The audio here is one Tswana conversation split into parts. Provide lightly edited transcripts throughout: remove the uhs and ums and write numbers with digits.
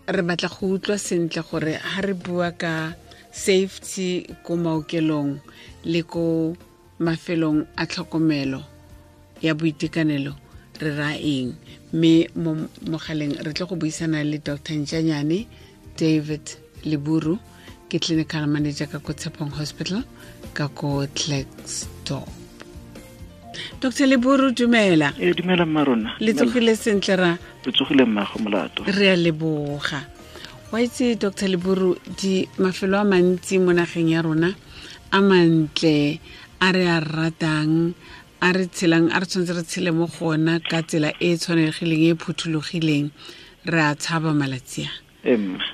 Re batla go utlwa sentle gore ha re bua ka safety ko maokelong le ko mafelong a tlhokomelo ya boitekanelo re ra eng, mme mo mogaleng re tle go buisana le Dr Ntšanyane David Leburu, ke clinical manager ka ko Tshepong Hospital ka ko Klerksdorp. Dr Leburu, dumela. E dumela mma rona. Le tsogile sentle ra? Re tsogile mmago molato. Re a leboga. Wa itse Dr Leburu, di mafelo a mantsi mo nageng ya rona a mantle a re a ratang, a re tshelang, a re tshwanetse re tshele mo go ona ka tsela e e tshwanegileng, e e phuthologileng, re a tshaba malatsi a.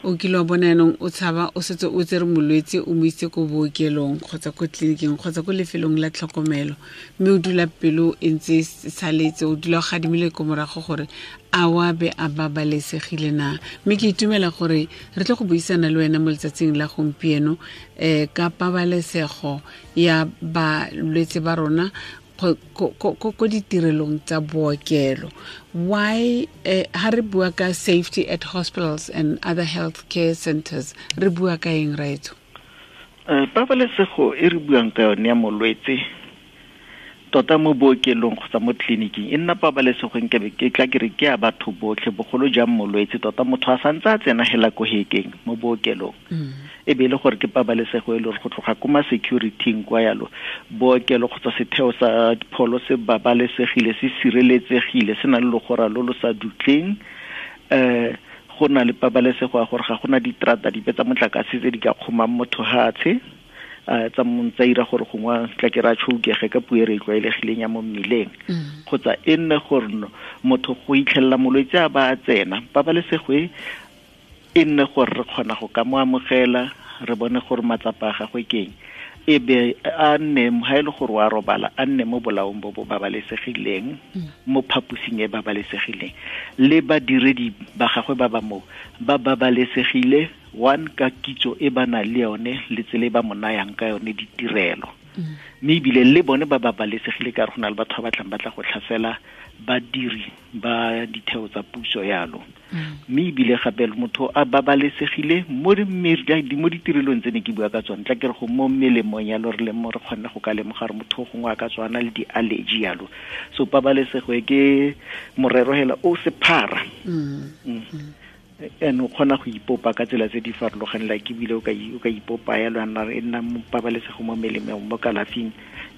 O kile wa bona yanong o tshaba o setse o tsere molwetse o mo itse ko bookelong kgotsa ko tleliniking kgotsa ko lefelong la tlhokomelo, mme o dula pelo e ntse e saletse, o dula o gadimile ko morago gore a wa be a babalesegile na. Mme ke itumela gore re tle go buisana le wena mo letsatsing la gompieno ka pabalesego ya balwetse ba rona ko ditirelong tsa bookelo. Why ha re bua ka safety at hospitals and other health care centers, re bua ka eng raetso? Pabalesego e re buang ka yone ya molwetse tota mo bookelong kgotsa mo tleliniking e nna pabalesego nkabe ke tla ke re ke ya batho botlhe, bogolo jang molwetse tota motho a santse a tsena hela ko hekeng mo bookelong. E be e le gore ke pabalesego e le gore go tloga ko ma security-ing kwa yalo, bookelo kgotsa setheo sa pholo se babalesegile, se sireletsegile, se na le logora lo lo sa dutleng. Go na le pabalesego ya gore ga gona diterata dipe tsa motlakase tse di ka kgomang motho hatshe, tsa tsa ira gore gongwe tla ke ra tšhoukege ka puo e re e tlwaelegileng ya mo mmileng. Kgotsa e nne gore motho go itlhelela molwetse a ba a tsena, pabalesego e e nne gore re kgona go ka mo amogela, re bone gore matsapa a gagwe ke eng, e be a nne ha e le gore wa robala, a nne mo bolaong bo bo babalesegileng, mo phaposing e babalesegileng, le badiredi ba gagwe ba ba moo ba babalesegile, one ka kitso e ba nang le yone le tsela e ba mo nayang ka yone ditirelo. Mme ebile le bone ba babalesegile ka gore go na le batho ba batlang ba tla go tlhasela badiri ba ditheo tsa puso yalo. Mme ebile gape motho a babalesegile mo mo ditirelong tse ne ke bua ka tsone, tla ke re go mo melemong yalo re le mo re kgonne go ka lemoga gore motho gongwe a ka tswana le di-allergy yalo. So pabalesego e ke morero hela o sephara. And o kgona go ipopa ka tsela tse di farologaneng, like ebile o ka ipopa yalo ya nna e nna mo pabalesego mo melemong, mo kalafing.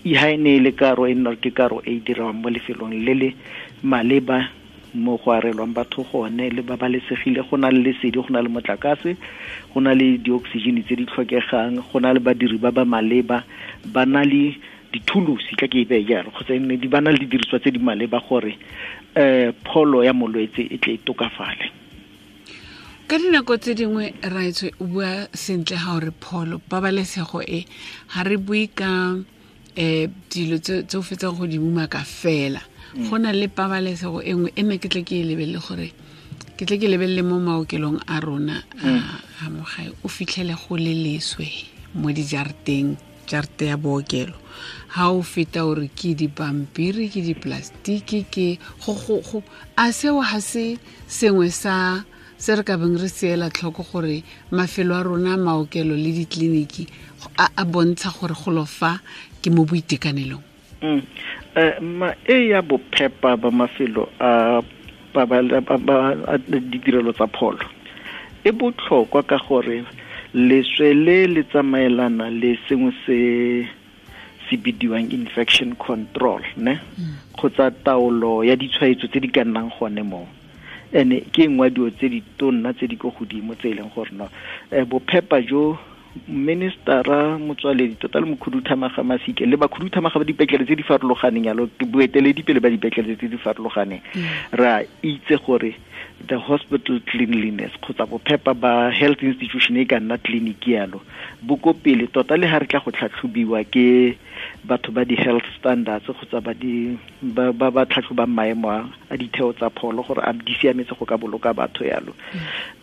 E ha e ne e le karo, e nna ke karo e e dirwang mo lefelong le le maleba mo go arelwang batho gone, le babalesegile, go na le lesedi, go na le motlakase, go na le di-oxygen tse di tlhokegang, go na le badiri ba ba maleba, ba na le dithulusi, tla ke e beye jalo, kgotsa e nne di ba na le didiriswa tse di maleba gore pholo ya molwetse e tle e tokafale. Ka dinako tse dingwe raetswe o bua sentle ga o re pholo, pabalesego e ga re bue ka dilo tse o fetsang go di umaka fela. Go na le pabalesego e nngwe e nne ke tle ke e lebelele gore ke tle ke lebelele mo maokelong a rona a mo gae, o fitlhele go le leswe mo dijarateng, jarate ya bookelo. Ha o feta o re ke dipampiri, ke diplastiki, ke go, go, go. A seo ha se sengwe sa se re ka beng re seela tlhoko gore mafelo a rona maokelo le ditleliniki a bontsha gore golo fa ke mo boitekanelong? Ma e ya bophepa ba mafelo a ditirelo tsa pholo e botlhokwa ka gore leswe le le tsamaelana le sengwe se se bidiwang infection control, ne? Kgotsa taolo ya ditshwaetso tse di ka nnang gone moo. Ene ke nngwe ya dilo tse di tonna tse di ko godimo tse e leng gore no, bophepa jo ministera Motsoaledi tota le mokhuduthamaga Masike le bakhuduthamaga ba dipetlele tse di farologaneng yalo, ke boeteledipele ba dipetlele tse di farologaneng, re a itse gore the hospital cleanliness kgotsa bophepa ba health institution e ka nna clinic yalo bo ko pele tota le ha re tla go tlhatlhobiwa ke batho ba di-health standards kgotsa ba di, ba, ba, ba tlhatlhobang maemo a ditheo tsa pholo gore a di siametse go ka boloka batho yalo.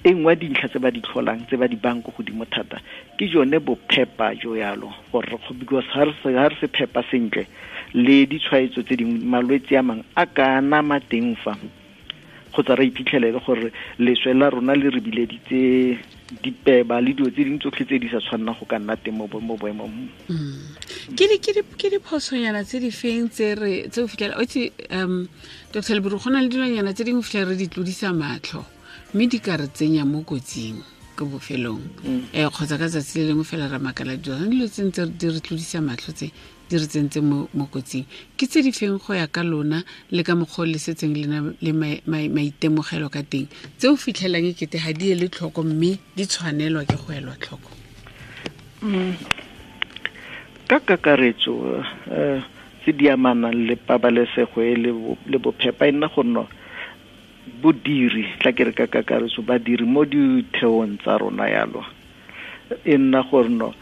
E nngwe ya dintlha tse ba di tlholang, tse ba di bang ko godimo thata, ke jone bophepa jo yalo, gore re kgo-, because ha re se, ha re se phepa sentle, le ditshwaetso tse dingwe, malwetse a mangwe a ka nama teng fa. Kgotsa re iphitlhele le gore leswe la rona le re bileditse dipeba le dilo tse dingwe tsotlhe tse di sa tshwannang go ka nna teng mo boemong. Ke diphosonyana tse di feng tse o fitlhela o itse, Dr. Leburu, go na le dilonyana tse dingwe fitlhela re di tlodisa matlho mme di ka re tsenya mo kotsing ko bofelong, kgotsa ka tsatsi le lengwe fela ra makala dilo tse ntse di re tlodisa matlho tse di re tsentse mo kotsing. Ke tse di feng go ya ka lona le ka mokgwa o le setseng le maitemogelo ka teng tse o fitlhelang e kete ga di ele tlhoko mme di tshwanelwa ke go elwa tlhoko? Ka kakaretso tse di amanang le pabalesego e le bophepa e nna go nna bodiri, tla ke re ka kakaretso badiri mo ditheong tsa rona yalo e nna gore no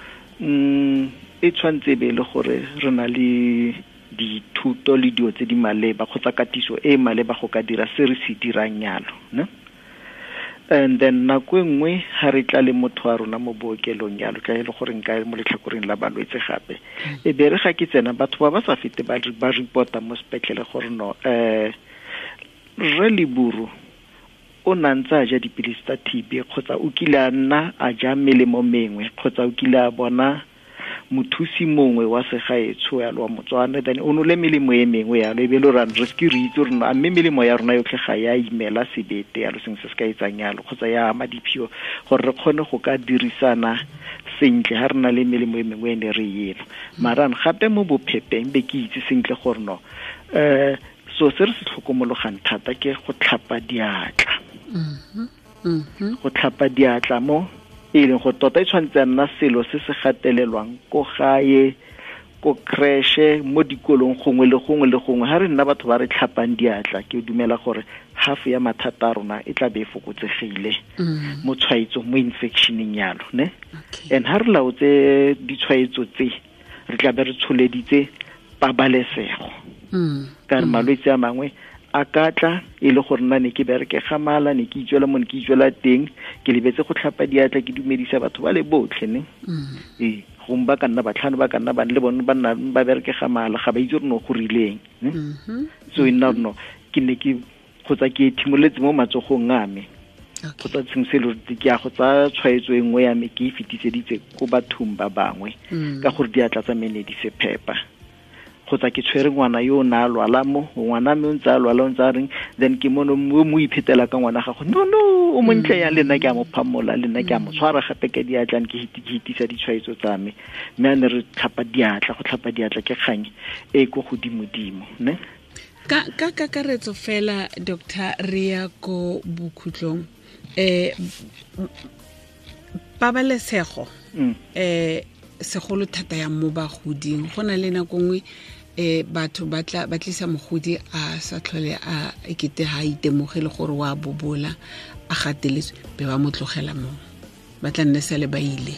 e tshwanetse be le gore re na le dithuto le dilo tse di maleba kgotsa katiso e maleba go ka dira se re se dirang yalo, ne? And then nako e nngwe ha re tla le motho wa rona mo bookelong yalo, tla e le gore nka mo letlhakoreng la balwetse gape, e be re ga ke tsena batho ba ba sa fete ba reporta mo sepetlele gore no Rre Leburu o na ntse a ja dipilisi tsa TB kgotsa o kile a nna a ja melemo mengwe kgotsa o kile a bona mothusi mongwe wa segaetsho yalo wa Motswana, then o nole melemo e mengwe yalo, e be le gore re se re itse gore mme melemo ya rona yotlhe ga ya imela sebete yalo, sengwe se se ka etsang yalo kgotsa ya ama diphio, gore re kgone go ka dirisana sentle ha re na le melemo e mengwe e ne re eno. Mara gape mo bophepeng be ke itse sentle gore no so se re se tlhokomologang thata ke go tlhapa diatla. Go tlhapa diatla mo e leng go tota e tshwanetse nna selo se se gatelelwang ko gae, ko creche, mo dikolong gongwe le gongwe le gongwe. Ha re nna batho ba re tlhapang diatla, ke dumela gore half ya mathata a rona e tla be e fokotsegile mo tshwaetsong, mo infectioneng yalo, ne? And ha re laotse ditshwaetso tse, re tla be re tsholeditse pabalesego. Ka re malwetse a mangwe a ka tla e le gore nna ne ke bereke ga mala, ne ke itswela mo ne ke itswela teng, ke lebetse go tlhapa diatla, ke dumedisa batho ba le botlhe, ne? Gongwe ba ka nna batlhano, ba ka nna bane le bone ba nna ba bereke ga mala, ga ba itse gore no go rileng, ne? So e nna no ke ne ke kgotsa ke ethimoletse mo matsogong a me, kgotsa sengwe se le ke a go tsaya tshwaetso e nngwe ya me ke e fetiseditse ko bathong ba bangwe ka gore diatla tsa me ne di se phepa. Kgotsa ke tshwere ngwana yo o na a lwala mo, ngwana me o ntse a lwala, o ntse a reng, then ke mono o mo iphetela ka ngwana gago, no no o montle yang, le nna ke a mo phamola, le nna ke a mo tshwara gape ka diatla, ke hitisa ditshwaetso tsa me. Mme a ne re tlhapa diatla, go tlhapa diatla ke kgang e ko godimodimo, ne? Ka kakaretso fela, Dr. re ya ko bokhutlong, pabalesego segolo thata ya mo bagoding, go na le nako nngwe batho ba tlisa mogodi a sa tlhole a ekete ha itemogele gore wa bobola, a gateletswe, be ba mo tlogela mo, ba tla nne sale ba ile.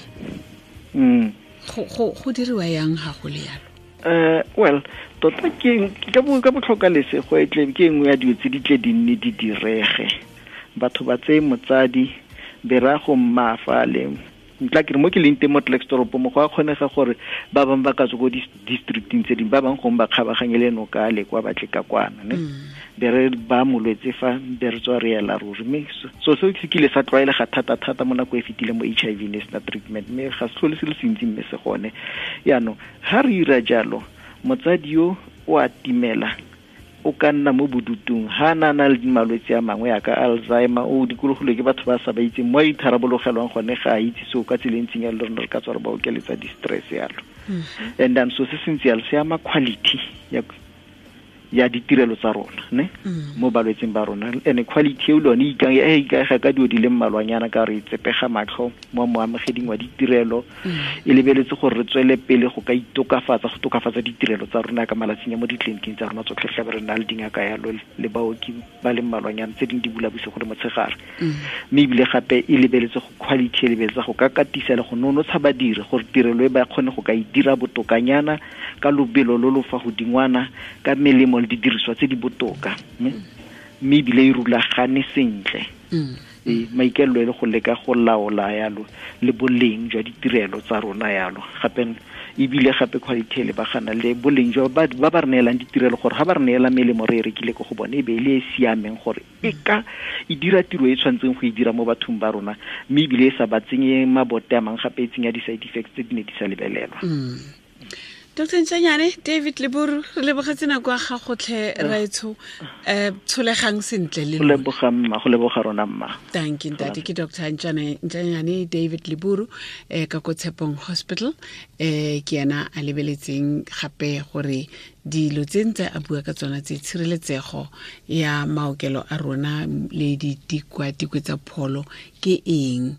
Go diriwa yang ga go le yalo? Well, tota ke ka botlhoka lesego e tle ke nngwe ya dilo tse di tle di nne di direge. Batho ba tseye motsadi be ra go mmafa le ntla ke re mo ke leng teng mo Klerksdorp mo go a kgonega gore ba bangwe ba ka tswa ko districting tse dingwe, ba bangwe gongwe ba kgabaganye le noka le kwa batle ka kwana, ne? Be re ba molwetse fa, be re tswa re ela ruri. Mme so seo se kile sa tlwaelega thata-thata mo nako e fetileng mo HIV ne sena treatment, mme ga se tlhole se le sentsi mme se gone. Yaanong ha re ira jalo, motsadi yo o a timela, o ka nna mo bodutung, ha na na le malwetse a mangwe ya ka Alzheimer, o dikologilwe ke batho ba sa ba itseng mo a itharabologelaang gone, ga a itse seo ka tsela e ntseng yalo, le rona re ka tswa re ba okeletsa di-stress yalo. And then so se sentse yalo se ama quality ya ditirelo tsa rona, ne? Mo balwetseng ba rona. And quality eo le yone e ikaega ka dilo di le mmalwanyana, ka re tsepega matlho mo moamogeding wa ditirelo, e lebeletse gore re tswele pele go ka itokafatsa, go tokafatsa ditirelo tsa rona ka malatsing a mo ditleliniking tsa rona tsotlhe, tla be re na le dingaka yalo le baoki ba le mmalwanyana, tse dingwe di bula bosigo le motshegare. Mme ebile gape e lebeletse go quality, e lebeletse go ka katisa le go nonotsha badiri gore tirelo e ba kgone go ka e dira botokanyana ka lobelo lo lo fa godingwana, ka melemo le didiriswa tse di botoka, mme ebile e rulagane sentle. Maikaelelo e le go leka go laola yalo le boleng jwa ditirelo tsa rona yalo. Gape Ebile gape quality e lebagana le boleng jwa ba ba re neelang ditirelo, gore ga ba re neela melemo re e rekile ko go bone e be e le e siameng, gore e ka e dira tiro e tshwanetseng go e dira mo bathong ba rona, mme ebile e sa ba tsenye mabote a mangwe gape e tsenya di-side effects tse di ne di sa lebelelwa. Dr Ntšanyane David Leburu, re lebogetse nako ya gagotlhe raetsho. Um tsholegang sentle le go leboga mma, go leboga rona mma. Thank you ntate. Ke Dr Ntšanyane David Leburu ka ko Tshepong Hospital. Ke ena a lebeletseng gape gore dilo tse ntse a bua ka tsona tse, tshireletsego ya maokelo a rona le ditikwatikwe tsa pholo ke eng.